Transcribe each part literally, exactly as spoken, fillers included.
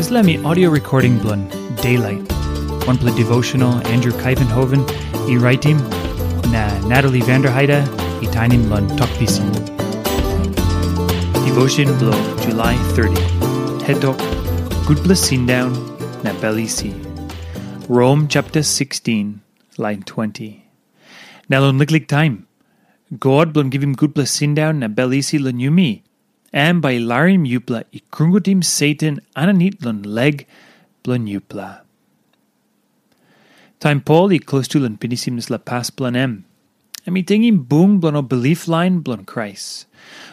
Dispela mi audio recording bilong Daylight. Wanpela devotional Andrew Kaivenhoven i raitim, na Natalie Vanderheide i tainim long Tok Pisin. Devotion bilong July thirty. Hetok, Gutpela Sindaun na Bel Isi. Rom chapter sixteen, line twenty. Na long liklik taim, God bilong givim gutpela sindaun na bel isi long yumi, em bai i larim yupela i krungutim Satan aninit long leg bilong yupela. Taim Pol i klostu long pinisim dispela pas bilong em, em i tingim bung bilong ol bilip lain bilong Krais.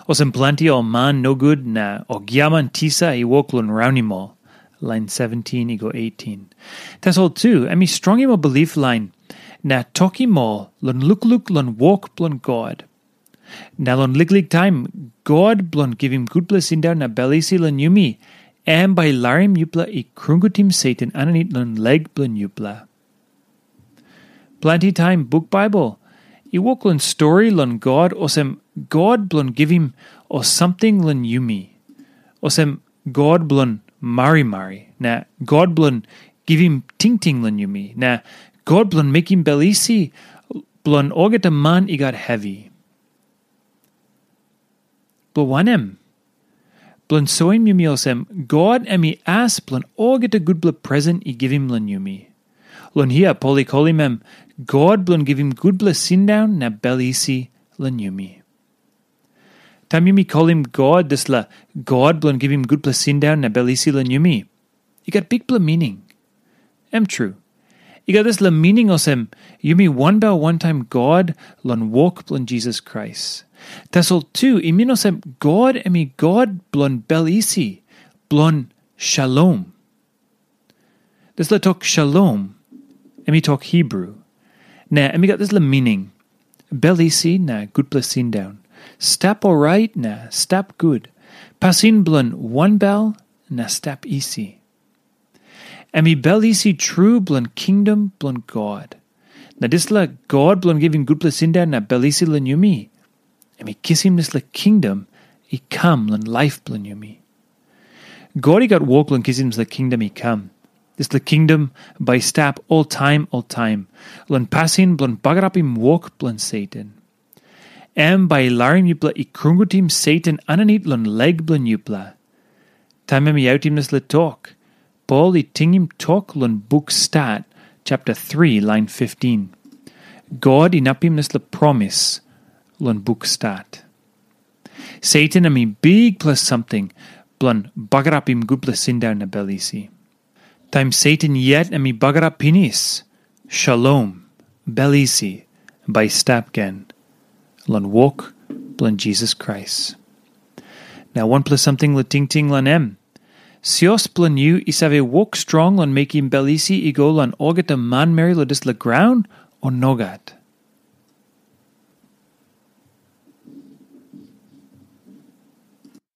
Olsem planti ol man nogut na ol giaman tisa i wok long raunim ol, lain seventeen i go eighteen. Tasol tu, em i strongim ol bilip lain na tokim ol long lukluk long wok bilong God. Na long liklik taim, God bilong givim gutpela sindaun na bel isi long yumi, em bai i larim yupela i krungutim Satan aninit long leg bilong yupela. Planti taim buk Baibel i wok long stori long God olsem God bilong givim ol samting long yumi, olsem God bilong marimari, na God bilong givim tingting long yumi, na God bilong mekim bel isi bilong olgeta man i gat hevi. Bilong wanem? Bilong soim yumi olsem, God em i as bilong olgeta gutpela presen i givim long yumi. Long hia Pol i kolim em God bilong givim gutpela sindaun na bel isi long yumi. Taim yumi kolim God dispela God bilong givim gutpela sindaun na bel isi long yumi, i gat bikpela mining. Em tru, i gat dispela mining olsem, yumi wanbel wantaim God long wok bilong Jisas Krais. Tasol tu i min olsem God em i God bilong bel isi, bilong shalom. Dispela tok shalom, em i tok Hibru, na em i gat dispela mining, bel isi na gutpela sindaun, stap orait na stap gut, pasin bilong wanbel na stap isi. Em i bel isi tru bilong kingdom bilong God. Na dispela God bilong givim gutpela sindaun na bel isi long yumi, em i kisim dispela kingdom i kam long laip bilong yumi. God i gat wok long kisim dispela kingdom i kam. Dispela kingdom bai i stap oltaim oltaim, long pasin bilong bagarapim wok bilong Satan. Em bai i larim yupela i krungutim Satan aninit long leg bilong yupela. Taim em i autim dispela tok, Pol i tingim tok long buk Stat, chapter three, lain fifteen. God inapim dispela promis long buk Stat. Satan em i bikpela samting bilong bagarapim gutpela sindaun na bel isi. Taim Satan yet em i bagarap pinis, shalom, bel isi, bai i stap gen long wok bilong Jisas Krais. Na wanpela samting long tingting long em. Sios bilong yu i save wok strong long mekim bel isi i go long olgeta manmeri long dispela graun, o nogat?